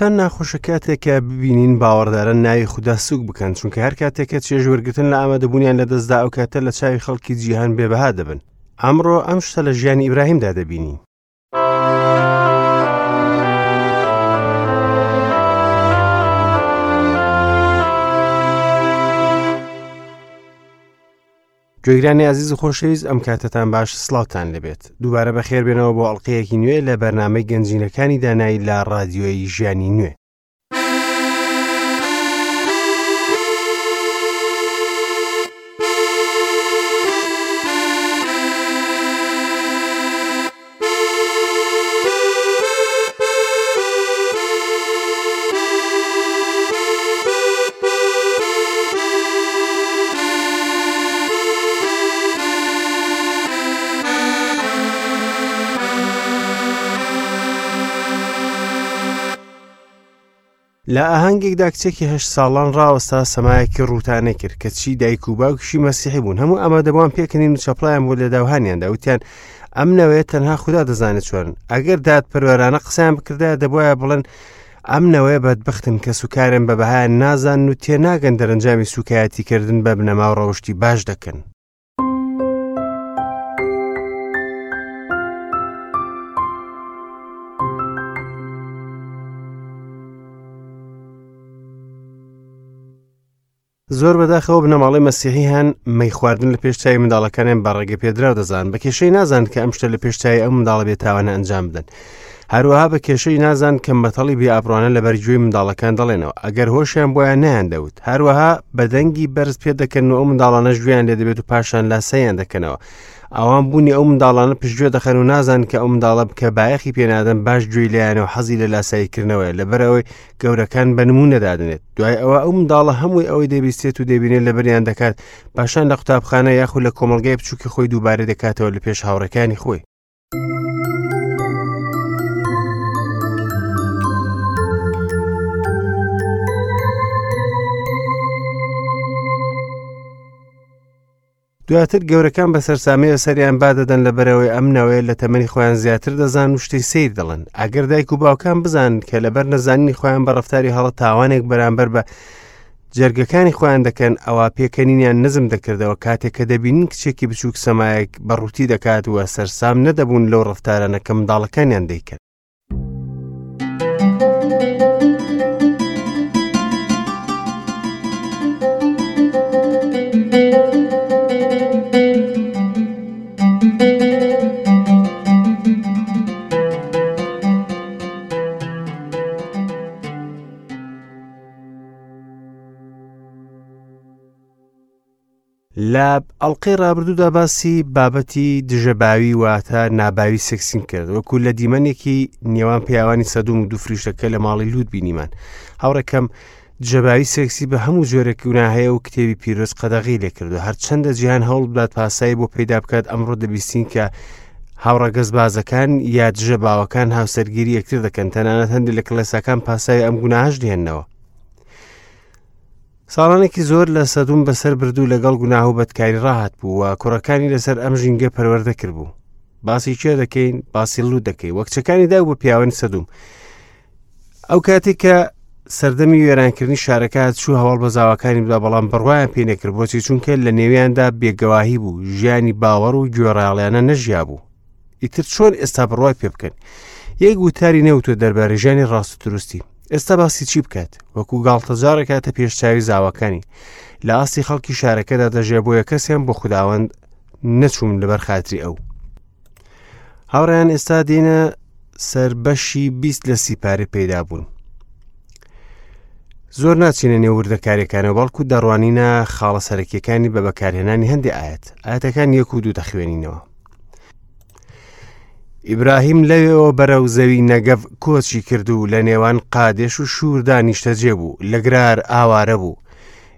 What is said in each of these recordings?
چەند ناخۆشە کاتێک کە ببینین باوەڕداران ناوی خودا سوک بکەن چونکە هەر کاتێک کە چێژ وەرگتن لە ئامادەبوونیان لەدەستدا ئەو کاتە لە چاوی خەڵکی جیهان بێبەها دەبن ئەمڕۆ ئەم شتە لە ژیانی ئیبراهیمدا دەبینین گوێگرانی ئازیز و خۆشەویست ئەم کاتەتان باش سڵاوتان لەبێت دووبارە بەخێر بێنەوە بۆ ئەڵلقەیەکی نوێ لە بەرنمەی گەنجینەکانی دانایی لە ڕادیۆیی ژیانی نوێ. لە ئاهەنگێکدا کچێکی هەشت ساڵان ڕاوەستا سەمایەکی ڕووتانە کرد کە چی دایک و باوکیشی مەسیحی بوون هەموو ئامادەبووان پێکەنین و چەپڵیان بۆ لێداوهانیاندا وتیان ئەم نەوەیە تەنها خودا دەزانێت چۆن ئەگەر دادپەروەرانە قسەیان بکردایە دەبواە بڵێن ئەم نەوەیە بەدبختن کە سوکارن بە بەهایان نازانن و تێناگەن دەرەنجامی سوکایەتیکردن بە بنەما و ڕەوشتی باش دەکەن. زۆر بەداخەوە بنەماڵەی مەسیحی هەن مەی خواردن لە پێش چاوی منداڵەکانیان بە ڕێگە پێدراو دەزان بە کێشەی نازان کە ئەم شتە لە پێش چاوی ئەم منداڵە بێتاوانە ئەنجام بدەن هەروەها بە کێشەی نازان کە مەتەڵی بێ ئابڕوانە لەبەر گوێی منداڵەکان دەڵێنەوە ئەگەر هۆشیان بۆیان نەیان دەوت هەروەها بە دەنگی بەرز پێ دەکەن و ئەو منداڵانەش گوێیان لێ دەبێت و پاشان لاسەیان دەکەنەوە ئەوان بوونی ئەو منداڵانە پشتگوێ دەخەن و نازان کە ئەو منداڵە بکە بایەخی پێنادەن باش گوێی لایەنە و حەزی لە لاساییکردنەوەیە لەبەرئەوەی گەورەکان بە نمونە دادنێت دوای ئەوە ئەو منداڵە هەمووی ئەوەی دەبیستێت و دەبینێت لەبەریان دەکات پاشان لە قوتابخانە یاخود لە کۆمەڵگای بچووکی خۆی دووبارە دەکاتەوە لە پێش هاوڕێکانی خۆی. دواتر گەورەکان بە سەرسامیەوە سەریان بادەدەن لەبەرئەوەی ئەم نەوەیە لە تەمەنی خۆیان زیاتر دەزان و شتی سیر دەڵێن ئەگەر دایک و باوکان بزانن کە لەبەر نەزانینی خۆیان بە ڕەفتاری هەڵە تاوانێک بەرامبەر بە جەرگەکانی خۆیان دەکەن ئەوە پێکەنینیان نزم دەکردەوە کاتێک کە دەبینن کچێکی بچووک سەمایەک بە ڕووتی دەکات و سەرسام نەدەبوون لەو ڕەفتارانە کە منداڵەکانیان دەیکەن. لە ئەڵقەی ڕابردوودا باسی بابەتی دژەباوی واتە ناباوی سێکسیم کرد وەکو لە دیمەنێکی نێوان پیاوانی سەدوم و دوو فریشتەکە لە ماڵی لوت بینیمان هاوڕێکەم دژەباوی سێکسی بە هەموو جۆرێک گوناهەیە و کتێبی پیرۆز قەدەغی لێکردو هەرچەندە جیهان هەوڵ بدات پاسایی بۆ پەیدا بکات ئەمڕۆ دەبیستین کە هاوڕەگەزبازەکان یا دژە باوەکان هاوسەرگیری یەکتر دەکەن تەنانەت هەندێک لە کڵێساکان پاساوی ئەم گوناهش دێنەوە ساڵانێکی زۆر لە سەدوم بەسەر برد و لەگەڵ گوناه و بەدکاری ڕاهات بوو و کوڕەکانی لەسەر ئەم ژینگە پەروەردە کردبوو باسی کێ دەکەین باسی لوت دەکەین وە کچەکانی دا بۆ پیاوانی سەدوم ئەو کاتێک کە سەردەمی وێرانکردنی شارەکە چوو هەواڵ بە زاواکانی بدا بەڵام بڕوایان پێ نەکرد بۆچی چونکە لە نێویاندا بێگەواهی بوو ژیانی باوەڕ و گوێڕایەڵیانە نەژیا بوو ئیتر چۆن ئێستا بڕوای پێ بکەن یەک وتاری نەوتۆ دەربارەی ژیانی ڕاست و دروستی ئێستا باسی چی بکات وەکو گاڵتەجارێک هاتە پێش چاوی زاواکانی لە ئاستی خەڵکی شارەکەدا دەژێ بۆیە کەسیان بۆ خوداوەند نەچوون لەبەر خاتری ئەو هاوڕیان ئێستا دێنە سەر بەشی 20 لە سیپارە پەیدا بوون زۆر ناچینە نێو وردەکاریەکانەوە بەڵکو دەڕوانینە خاڵە سەرەکیەکانی بە بەکارهێنانی هەندێک ئاەت ئاەتەکان یەک و دوو دەخوێنینەوە ئیبراهیم لەوێەوە بەرەو زەوی نەگەڤ کۆچی کرد و لە نێوان قادێش و شووردا نیشتەجێ بوو لە گرار ئاوارە بوو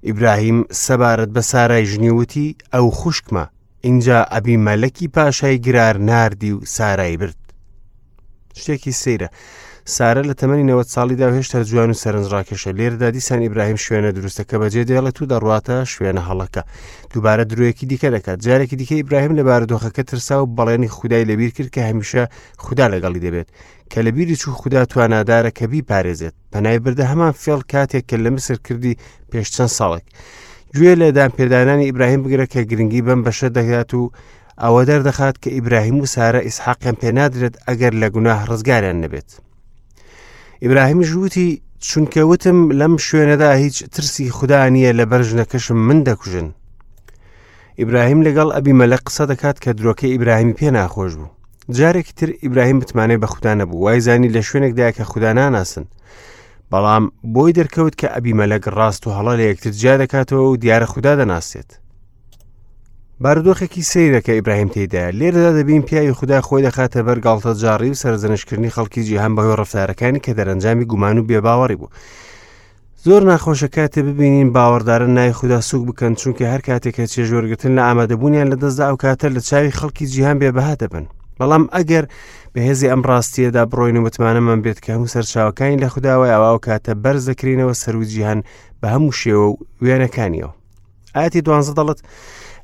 ئیبراهیم سەبارەت بە سارای ژنی وتی ئەو خوشکمە ئینجا ئەبیمەلەکی پاشای گرار ناردی و سارای برد شتێکی سەیرە. سارە لە تەمەنی 90 ساڵیدا و هێشتا جوان و سەرنجڕاکێشە. لێرەدا دیسان ئیبراهیم شوێنە دروستەکە بەجێ دێڵێت و دەڕواتە شوێنە هەڵەکە. دووبارە درۆیەکی دیکە دەکات. جارێکی دیکە ئیبراهیم لە بارودۆخەکە ترسا و بەڵێنی خودای لەبیر کرد کە هەمیشە خودا لەگەڵی دەبێت. کە لەبیری چوو خودا توانادارە کە بیپارێزێت. پەنای بردە هەمان فێڵ کاتێک کە لە میسر کردی پێش چەند ساڵێک. گوێ لە دانپێدانانی ئیبراهیم بگرە کە گرنگی بەم بەشە دەگات و ئەوە دەردەخات کە ئیبراهیم و سارە ئیسحاقیان پێنادرێت ئەگەر لە گوناه ڕزگاریان نەبێت. ئیبراهیمیش وتی چونکە وتم لەم شوێنەدا هیچ ترسی خودا نییە لەبەر ژنەکەشم من دەکوژن. ئیبراهیم لەگەڵ ئەبیمەلەک قسە دەکات کە درۆکەی ئیبراهیمی پێ ناخۆش بوو. جارێکی تر ئیبراهیم متمانەی بە خودا نەبوو، وایزانی لە شوێنێکدا کە خودا ناناسن. بەڵام بۆی دەرکەوت کە ئەبیمەلەک ڕاست و هەڵە لە یەکتر جیا دەکاتەوە و دیارە خودا دەناسێت. بارودۆخێکی سەیرە کە ئیبراهیم تێیدایە. لێرەدا دەبین پیاوی خودا خۆی دەخاتە بەر گاڵتەجاڕی و سەرزەنشتکردنی خەڵکی جیهان بەهۆی ڕەفتارەکانی کە دەرەنجامی گومان و بێباوەڕی بوو. زۆر ناخۆشە کاتێ ببینین باوەڕداران ناوی خودا سوک بکەن چونکە هەر کاتێک کە چێژوەرگتن لە ئامادەبوونیان لەدەستدا ئەو کاتە لە چاوی خەڵکی جیهان بێبەها دەبن بەڵام ئەگەر بەهێزی ئەم ڕاستیەدا بڕۆین و متمانەمان بێت کە هەموو سەرچاوەکانی لە خودداوە ئەوە ئەو کاتە بەرز دەکرینەوە سەرو جیهان بە هەموو شێوە و وێنەکانیەوە ئاەتی دوانزە دەڵێت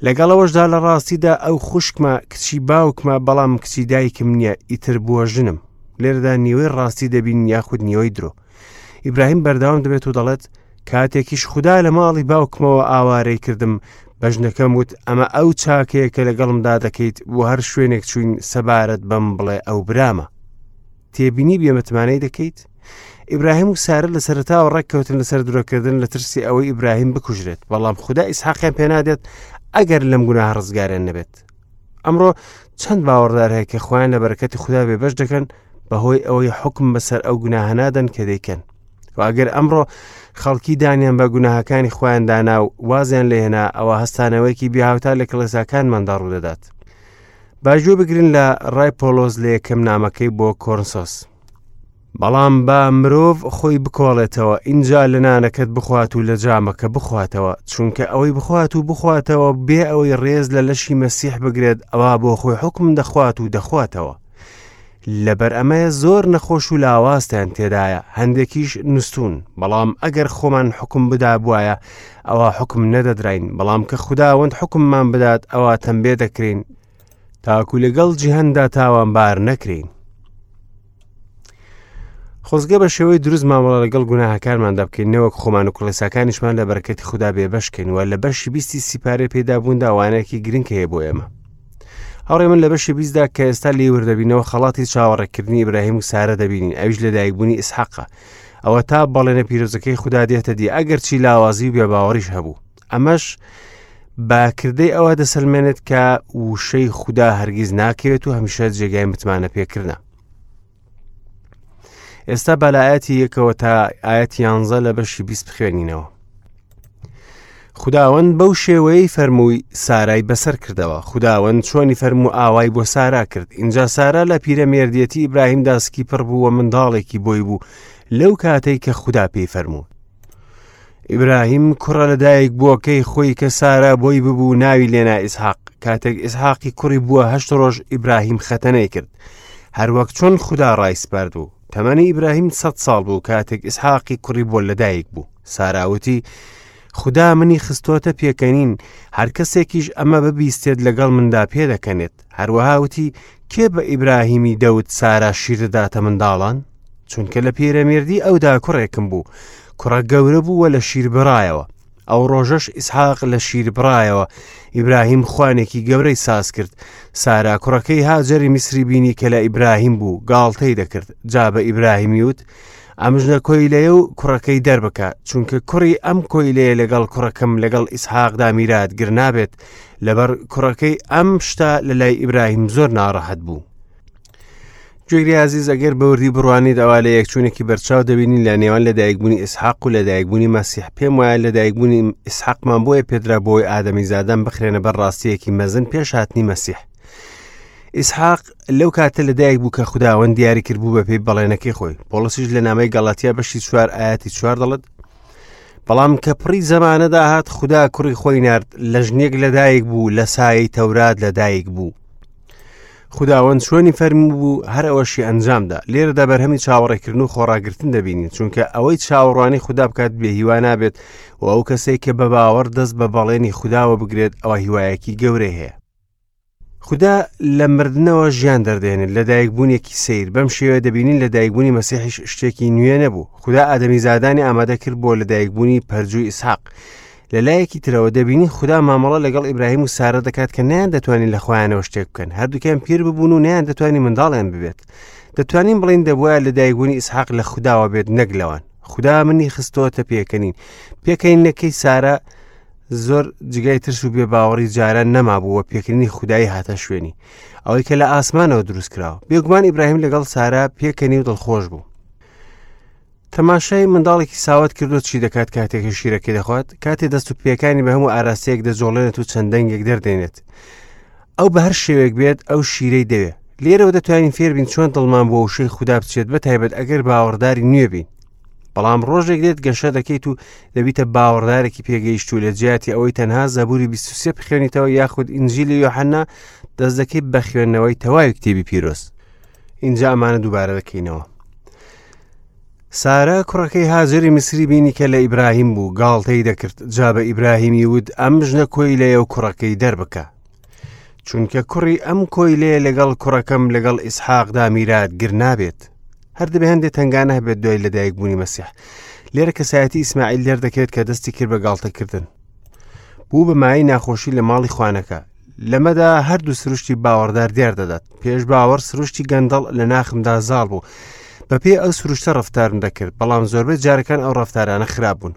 لەگەڵەوەشدا لە ڕاستیدا ئەو خوشکمە کچی باوکمە بەڵام کچی دایکم نییە ئیتر بووە ژنم لێرەدا نیوەی ڕاستی دەبین یاخود نیوەی درۆ ئیبراهیم بەردەوام دەبێت و دەڵێت کاتێکیش خودا لە ماڵی باوکمەوە ئاوارەی کردم بە ژنەکەم وت ئەمە ئەو چاکەیە کە لەگەڵمدا دەکەیت بۆ هەر شوێنێک چوین سەبارەت بەم بڵێ ئەو برامە تێبینی بێمتمانەی دەکەیت ئیبراهیم و سارە لە سەرتاوە ڕێککەوتن لەسەر درۆکردن لە ترسی ئەوەی ئیبراهیم بکوژرێت بەڵام خودا ئیسحاقیان پێنادێت ئەگەر لەم گوناه ڕزگاریان نەبێت ئەمڕۆ چەند باوەڕدار هەیە کە خۆیان لە بەرەکەتی خودا بێبەش دەکەن بەهۆی ئەوەی حکم بەسەر ئەو گوناهە نادەن کە دەیکەن و ئەگەر ئەمڕۆ خەڵکی دانیان بە گوناهەکانی خۆیان دانا و وازیان لێهێنا ئەوە هەستانەوەیەکی بێهاوتا لە کڵێساکانماندا ڕوودەدات با گوێ بگرن لە ڕای پۆلۆس لە یەکەم نامەکەی بۆ کۆرنسۆس بەڵام با مرۆڤ خۆی بکۆڵێتەوە ئینجا لە نانەکەت بخوات و لە جامەکە بخواتەوە چونکە ئەوەی بخوات و بخواتەوە بێ ئەوەی ڕێز لە لەشی مەسیح بگرێت ئەوا بۆ خۆی حکم دەخوات و دەخواتەوە لەبەر ئەمەیە زۆر نەخۆش و لاوازتان تێدایە هەندێکیش نوستون بەڵام ئەگەر خۆمان حکم بدابوایە ئەوا حکم نەدەدراین بەڵام کە خوداوەند حکممان بدات ئەوا تەمبێ دەکرین تاکو لەگەڵ جیهاندا تاوانبار نەکرین خۆزگە بە شێوەی دروست مامەڵە لەگەڵ گوناهەکانماندا بکەین نەوەک خۆمان و کڵێساکانیشمان لە بەرەکەتی خودا بێبەشکەین و لە بەشی بیستی سیپارێ پێدابووندا وانەیەکی گرنگ هەیە بۆ ئێمە هاوڕێ من لە بەشی بیستدا کە ئێستا لێی وردەبینەوە خەڵاتی چاوەڕێکردنی ئیبراهیم و سارە دەبینین ئەویش لەدایکبوونی ئیسحاقە ئەوە تا بەڵێنە پیرۆزەکەی خودا دێتە دی ئەگەرچی لاوازی و بێباوەڕیش هەبوو ئەمەش بە کردەی ئەوە دەسەلمێنێت کە وشەی خودا هەرگیز ناکەوێت و هەمیشە جێگای متمانە پێکردە ئێستا با لە ئاەتی یەکەوە تا ئاەتی یانزە لە بەشی 20 بخوێنینەوە خداوەند بەو شێوەیەی فەرمووی سارای بەسەر کردەوە خداوەند چۆنی فەرموو ئاوای بۆ سارا کرد اینجا سارا لە پیرەمێردیەتی ئیبراهیم داسکی پڕ بوو و منداڵێکی بۆی بوو لەو کاتەی کە خودا پێی فەرموو ئیبراهیم کوڕە لەدایک بووەکەی خۆی کە سارا بۆی ببوو ناوی لێنا ئیسحاق کاتێک ئیسحاقی کوڕی بووە هەشت ڕۆژ ئیبراهیم خەتەنەی کرد هەروەک چۆن خودا ڕایسپارد بوو تەمەنی ئیبراهیم سە ساڵ بوو کاتێک ئیسحاقی کوڕی بۆ لەدایک بوو ساراوتی خودا منی خستۆتە پێکەنین هەر کەسێکیش ئەمە ببیستێت لەگەڵ مندا پێدەکەنێت هەروەها وتی کێ بە ئیبراهیمی دەوت سارا شیر دەداتە منداڵان چونکە لە پیرەمێردی ئەودا کوڕێکم بوو کوڕە گەورە بوو و لە شیر بڕایەوە ئەو ڕۆژەش ئیسحاق لە شیر بڕایەوە ئیبراهیم خوانێکی گەورەی ساز کرد سارا کوڕەکەی هاجەری میسری بینی کە لە ئیبراهیم بوو گاڵتەی دەکرد جا بە ئیبراهیمی وت ئەم ژنە کۆیلەیە و کوڕەکەی دەربکە چونکە کوڕی ئەم کۆیلەیە لەگەڵ کوڕەکەم لەگەڵ ئیسحاقدا میراتگر نابێت لەبەر کوڕەکەی ئەم شتە لە لای ئیبراهیم زۆر ناڕەحەت بوو گوێگری ئازیز ئەگەر بەوردی بڕوانیت ئەوا لە یەکچوونێکی بەرچاو دەبینین لە نێوان لەدایکبوونی ئیسحاق و لەدایکبوونی مەسیح پێم وایە لەدایکبوونی ئیسحاقمان بۆیە پێدرا بۆی ئادەمیزادان بخرێنە بەر ڕاستیەکی مەزن پێش هاتنی مەسیح ئیسحاق لەو کاتە لەدایک بوو کە خوداوەند دیاری کرد بوو بە پێی بەڵێنەکەی خۆی پۆڵسیش لە نامەی گەڵاتیا بەشی چوار ئاەتی چوار دەڵێت بەڵام کە پڕی زەمانە داهات خودا کوڕی خۆی نارد لە ژنێک لەدایک بوو لە سایەی تەورات لەدایک بوو. خوداوەند چۆنی فەرموو هەر ئەوەشی ئەنجامدا. لێرەدا بەرهەمی چاوەڕێکردن و خۆڕاگرتن دەبینین، چونکە ئەوەی چاوەڕوانی خودا بکات بێ هیوا نابێت و ئەو کەسەی کە بە باوەڕ دەست بە بەڵێنی خوداوە بگرێت ئەوە هیوایەکی گەورەی هەیە. خودا لە مردنەوە ژیان دەردێنێت، لەدایکبوونێکی سەیر. بەم شێوەیە دەبینین لەدایکبوونی مەسیحیش شتێکی نوێ نەبوو. خودا ئادەمیزادانی ئامادە کرد بۆ لەدایکبوونی پەرجووی ئیسحاق. لە لایەکی ترەوە دەبینین خودا مامەڵە لەگەڵ ئیبراهیم و سارە دەکات کە نەیان دەتوانین لە خۆیانەوە شتێک بکەن. هەردووکیان پیر ببوون و نەیان دەتوانی منداڵیان ببێت. دەتوانین بڵێین دەبوایە لەدایکبوونی ئیسحاق لە خوداوە بێت نەک لەوان. خودا منی خستۆتە پێکەنین. پێکەنینەکەی سارە زۆر جگای ترس و بێباوەڕی جاران نەمابوو و پێکردنی خودایی هاتە شوێنی ئەوەی کە لە ئاسمانەوە دروست کراوە. بێگومان ئیبراهیم لەگەڵ سارا پێکەنی و دڵخۆش بوو. تەماشای منداڵێکی ساوت کردو چی دەکات کاتێک شیرەکەی دەخوات؟ کاتێ دەست و پێکانی بە هەموو ئاراستەیەک دەجۆڵێنێت و چەند دەنگێک دەردێنێت. ئەو بە هەر شێوەیەک بێت ئەو شیرەی دەوێت. لێرەوە دەتوانین فێربین چۆن دڵمان بۆ وشەی خودا بچێت، بە تایبەت ئەگەر باوەڕداری نوێ بین. بەڵام ڕۆژێک دێت گەشە دەکەیت و دەبیتە باوەڕدارێکی پێگەیشتوو لە جیاتی ئەوەی تەنها زەبوری 23 بخوێنیتەوە یاخود ئینجیلی یۆحەنا دەست دەکەیت بە خوێندنەوەی تەواوی کتێبی پیرۆز. ئینجا ئەمانە دووبارە دەکەینەوە. سارا کوڕەکەی هاجەری میسری بینی کە لە ئیبراهیم بوو، گاڵتەی دەکرد، جا بە ئیبراهیمی وت ئەم ژنە کۆیلەیە و کوڕەکەی دەربکە. چونکە کوڕی ئەم کۆیلەیە لەگەڵ کوڕەکەم لەگەڵ ئیسحاقدا میراتگر نابێت. هەر دەبێ هەندێک تەنگانە هەبێت دوای لەدایکبوونی مەسیح. لێرە کەسایەتی ئیسماعیل دەردەکەوێت کە دەستی کرد بە گاڵتەکردن. بوو بە مایەی ناخۆشی لە ماڵی خوانەکە. لەمەدا هەردوو سروشتی باوەڕدار دیار دەدات. پێش باوەڕ سروشتی گەندەڵ لە ناخمدا زاڵ بوو. بەپێی ئەو سروشتە ڕەفتارم دەکرد، بەڵام زۆربەی جارەکان ئەو ڕەفتارانە خراپ بوون.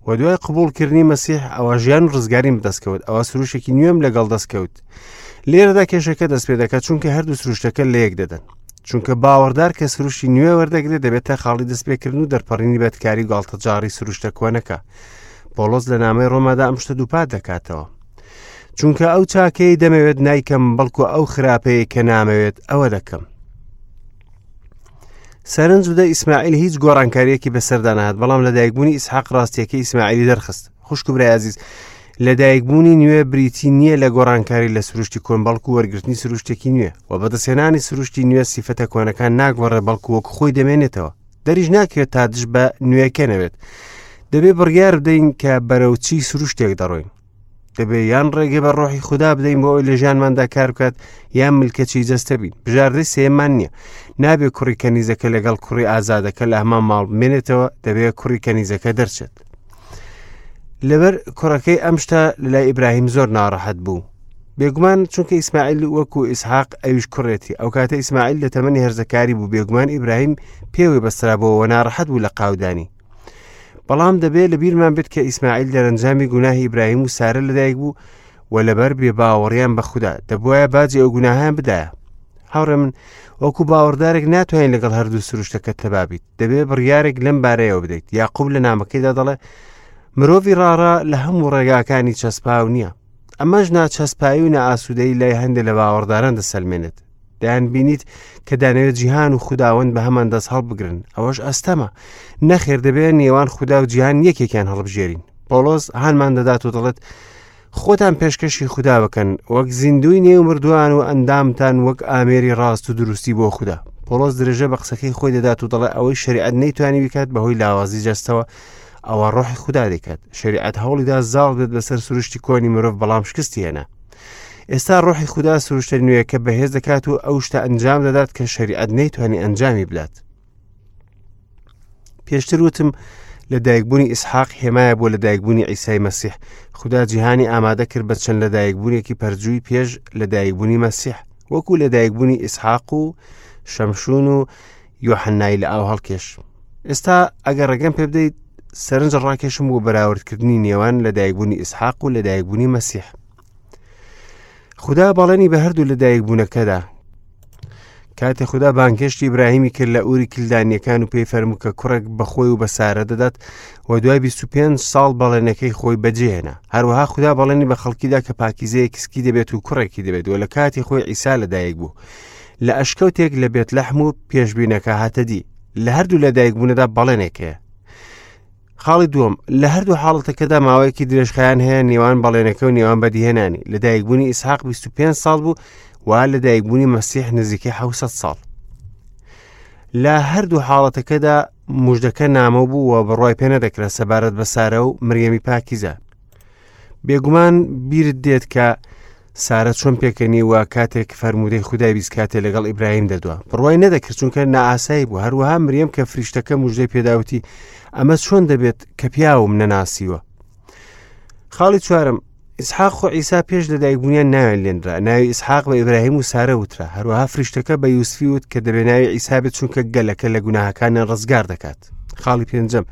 و دوای قبوڵکردنی مەسیح ئەوە ژیان و ڕزگاریم بەدەستکەوت، ئەوە سروشێکی نوێم لەگەڵ دەستکەوت. لێرەدا کێشەکە دەست پێ دەکات، چونکە هەردوو سروشتەکە لە یەک دەدەن. چونکە باوەڕدار کە سروشتی نوێ وەردەگرێت دەبێتە خاڵی دەستپێکردن و دەرپەڕینی بەدکاری و گاڵتەجاڕی سروشتە کۆنەکە. پۆڵۆس لە نامەی ڕۆمادا ئەم شتە دووپات دەکاتەوە. چونکە ئەو چاکەی دەمەوێت نایکەم، بەڵکو ئەو خراپەیە کە نامەوێت ئەوە دەکەم. سەرنج بدە ئیسماعیل هیچ گۆڕانکاریەکی بەسەردا نەهات، بەڵام لەدایکبوونی ئیسحاق ڕاستیەکەی ئیسماعیلی دەرخست. خوشک و برای ئازیز، لەدایکبوونی نوێ بریتی نییە لە گۆڕانکاری لە سروشتی کۆن، بەڵکو وەرگرتنی سروشتێکی نوێ و بەدەستهێنانی سروشتی نوێ سیفەتە کۆنەکان ناگۆڕێ، بەڵکو وەک خۆی دەمێنێتەوە. دەریش ناکرێت تا دژ بە نوێکە نەبێت. دەبێ بڕیار بدەین کە بەرەو چی سروشتێک دەڕۆین. دەبێ یان ڕێگە بە ڕۆحی خودا بدەین بۆ ئەوەی لە ژیانماندا کار بکات، یان ملکەچی جەستە بین. بژاردەی سێیەممان نییە. نابێ کوڕی کەنیزەکە لەگەڵ کوڕی ئازادەکە لە هەمان ماڵ بمێنێتەوە، دەبێ کوڕی کەنیزەکە دەرچێت. لەبەر کوڕەکەی ئەم شتە لەلای ئیبراهیم زۆر ناڕەحەت بوو. بێگومان چونکە ئیسماعیل وەکو ئیسحاق ئەویش کوڕێتی. ئەو کاتە ئیسماعیل لە تەمەنی هەرزەکاری بوو، بێگومان ئیبراهیم پێوەی بەسترابووەوە ناڕەحەت بوو لە قاودانی. بەڵام دەبێت لە بیرمان بێت کە ئیسماعیل دەرەنجامی گوناهی ئیبراهیم و سارە لەدایک بوو و لەبەر بێباوەڕیان بە خودا دەبواە باجی ئەو گوناهیان بدایە. هاوڕێ من وەکو باوەڕدارێک ناتوانین لەگەڵ هەردوو سروشتەکە تەبابیت. دەبێ بڕیارێک لەم بارەیەوە بدەیت. یاقوب لە نامەکەیدا دەڵێ مرۆڤی ڕاڕا لە هەموو ڕێگاکانی چەسپاو نییە. ئەمەش ناچەسپایی و نائاسوودەیی لای هەندێک لە باوەڕداران دەسەلمێنێت. دەیان بینیت کە دانەوێت جیهان و خوداوەند بە هەمان دەست هەڵبگرن. ئەوەش ئەستەمە. نەخێر دەبێت نێوان خودا و جیهان یەکێکیان هەڵبژێرین. پۆڵۆس هانمان دەدات و دەڵێت خۆتان پێشکەشی خودا بکەن وەک زیندوی نێو مردووان و ئەندامتان وەک ئامێری ڕاست و دروستی بۆ خودا. پۆڵۆس درێژە بە قسەکەی خۆی دەدات و دەڵێ ئەوەی شەریعەت نەیتوانی بکات بەهۆی لاوازی جەستەوە ئەوە ڕۆحی خودا دەکات. شەریعەت هەوڵیدا زاڵ بێت بەسەر سروشتی کۆنی مرۆڤ، بەڵام شکستی هێنا. ئێستا ڕۆحی خودا سروشتە نوێیەکە بەهێز دەکات و ئەو شتە ئەنجام دەدات کە شەریعەت نەیتوانی ئەنجامی بدات. پێشتر وتم لەدایکبوونی ئیسحاق هێمایە بۆ لەدایکبوونی عیسای مەسیح. خودا جیهانی ئامادە کرد بە چەند لەدایکبوونێکی پەرجووی پێش لەدایکبوونی مەسیح، وەکو لەدایکبوونی ئیسحاق و شەمشون و یۆحەنای لە ئاو هەڵکێش. ئێستا ئەگەر ڕێگەم پێ بدەیت سەرنج ڕاکێشم بۆ بەراوردکردنی نێوان لەدایکبوونی ئیسحاق و لەدایکبوونی مەسیح. خودا بەڵێنی بە هەردوو لەدایکبوونەکەدا. کاتێ خودا بانگهێشتی ئیبراهیمی کرد لە ئوری کلدانیەکان و پێی فەرموو کە کوڕێک بە خۆی و بە سارە دەدات و دوای 25 ساڵ بەڵێنەکەی خۆی بەجێهێنا. هەروەها خودا بەڵێنی بە خەڵکیدا کە پاکیزەیەکی سکی دەبێت و کوڕێکی دەبێت و لە کاتی خۆی عیسا لەدایک بوو. لە ئەشکەوتێک لە بێتلەحم و پێشبینەکە هاتە دی. لە هەردوو لەدایکبوونەدا بەڵێنێک هەیە. خاڵی دووەم، لە هەردوو حاڵەتەکەدا ماوەیەکی درێژخایەن هەیە نێوان بەڵێنەکە و نێوان بەدیهێنانی. لەدایکبوونی ئیسحاق 25 ساڵ بوو و لەدایکبوونی مەسیح نزیکەی 600 ساڵ. لە هەردوو حاڵەتەکەدا مژدەکە نامۆ بوو و بڕوای پێ نەدەکرا سەبارەت بە سارە و مریەمی پاکیزە. بێگومان بیرت دێت کە سارە چۆن پێکەنی و کاتێک فەرموودەی خودای بیست کاتێ لەگەڵ ئیبراهیم دەدوا بڕوای نەدەکرد چونکە نائاسایی بوو هەروەها مریەم کە فریشتەکە مژدەی پێداوتی ئەمە چۆن دەبێت کە پیاوم نەناسیوە خاڵی چوارم ئیسحاق و عیسا پێش لەدایکبوونیان ناویان لێنرا ناوی ئیسحاق بە ئیبراهیم و سارە وترا هەروەها فریشتەکە بە یوسفی وت کە دەبێ ناوی عیسا بێت چونکە گەلەکە لە گوناهەکانیان ڕزگار دەکات خاڵی پێنجەم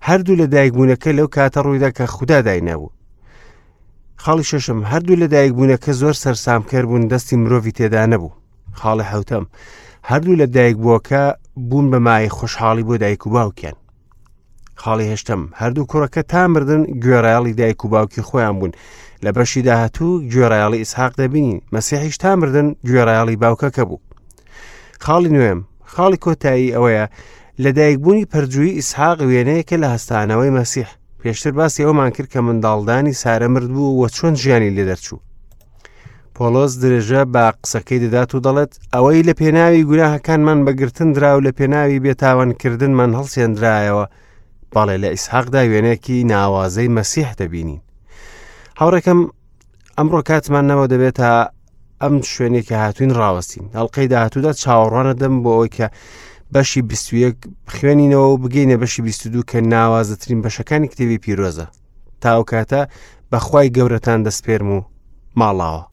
هەردوو لە دایکبوونەکە لەو کاتە ڕوویدا کە خودا داینابوو خاڵی شەشەم هەردوو لە دایکبوونەکە زۆر سەرسامکەر بوون دەستی مرۆڤی تێدا نەبوو خاڵی حوتەم هەردوو لە دایکبووەکە بوون بە مای خۆشحاڵی بۆ دایک و باوکیان خاڵی هەشتەم هەردوو کوڕەکە تا مردن گوێڕایەڵی دایک و باوکی خۆیان بوون لە بەشی داهاتوو گوێڕایەڵی ئیسحاق دەبینین مەسیحیش تا مردن گوێڕایەڵی باوکەکە بوو خاڵی نوێم خاڵی کۆتایی ئەوەیە لەدایکبوونی پەرجووی ئیسحاق وێنەیەکە لە هەستانەوەی مەسیح پێشتر باسی ئەومان کرد کە منداڵدانی سارە مرد بوو و چۆن ژیانی لێ دەرچوو پۆلۆس درێژە بە قسەکەی دەدات و دەڵێت ئەوەی لە پێناوی گوناهەکانمان بەگرتن درا و لە پێناوی بێتاوانکردنمان هەڵسێندرایەوە بەڵێ لە ئیسحاقدا وێنەیەکی ناوازەی مەسیح دەبینین هاوڕێکەم ئەمڕۆ کاتمان نەوە دەبێت تا ئەم شوێنێک کە هاتوین ڕاوەستین هەڵلقەی داهاتوودا چاوەڕوانە دەم بۆ ئەوەی کە بەشی 21 بخوێنینەوە و بگەینە بەشی 22 کە ناوازەترین بەشەکانی کتێبی پیرۆزە تاو کاتە بەخوای گەورەتان دەستپێرم و ماڵاوە.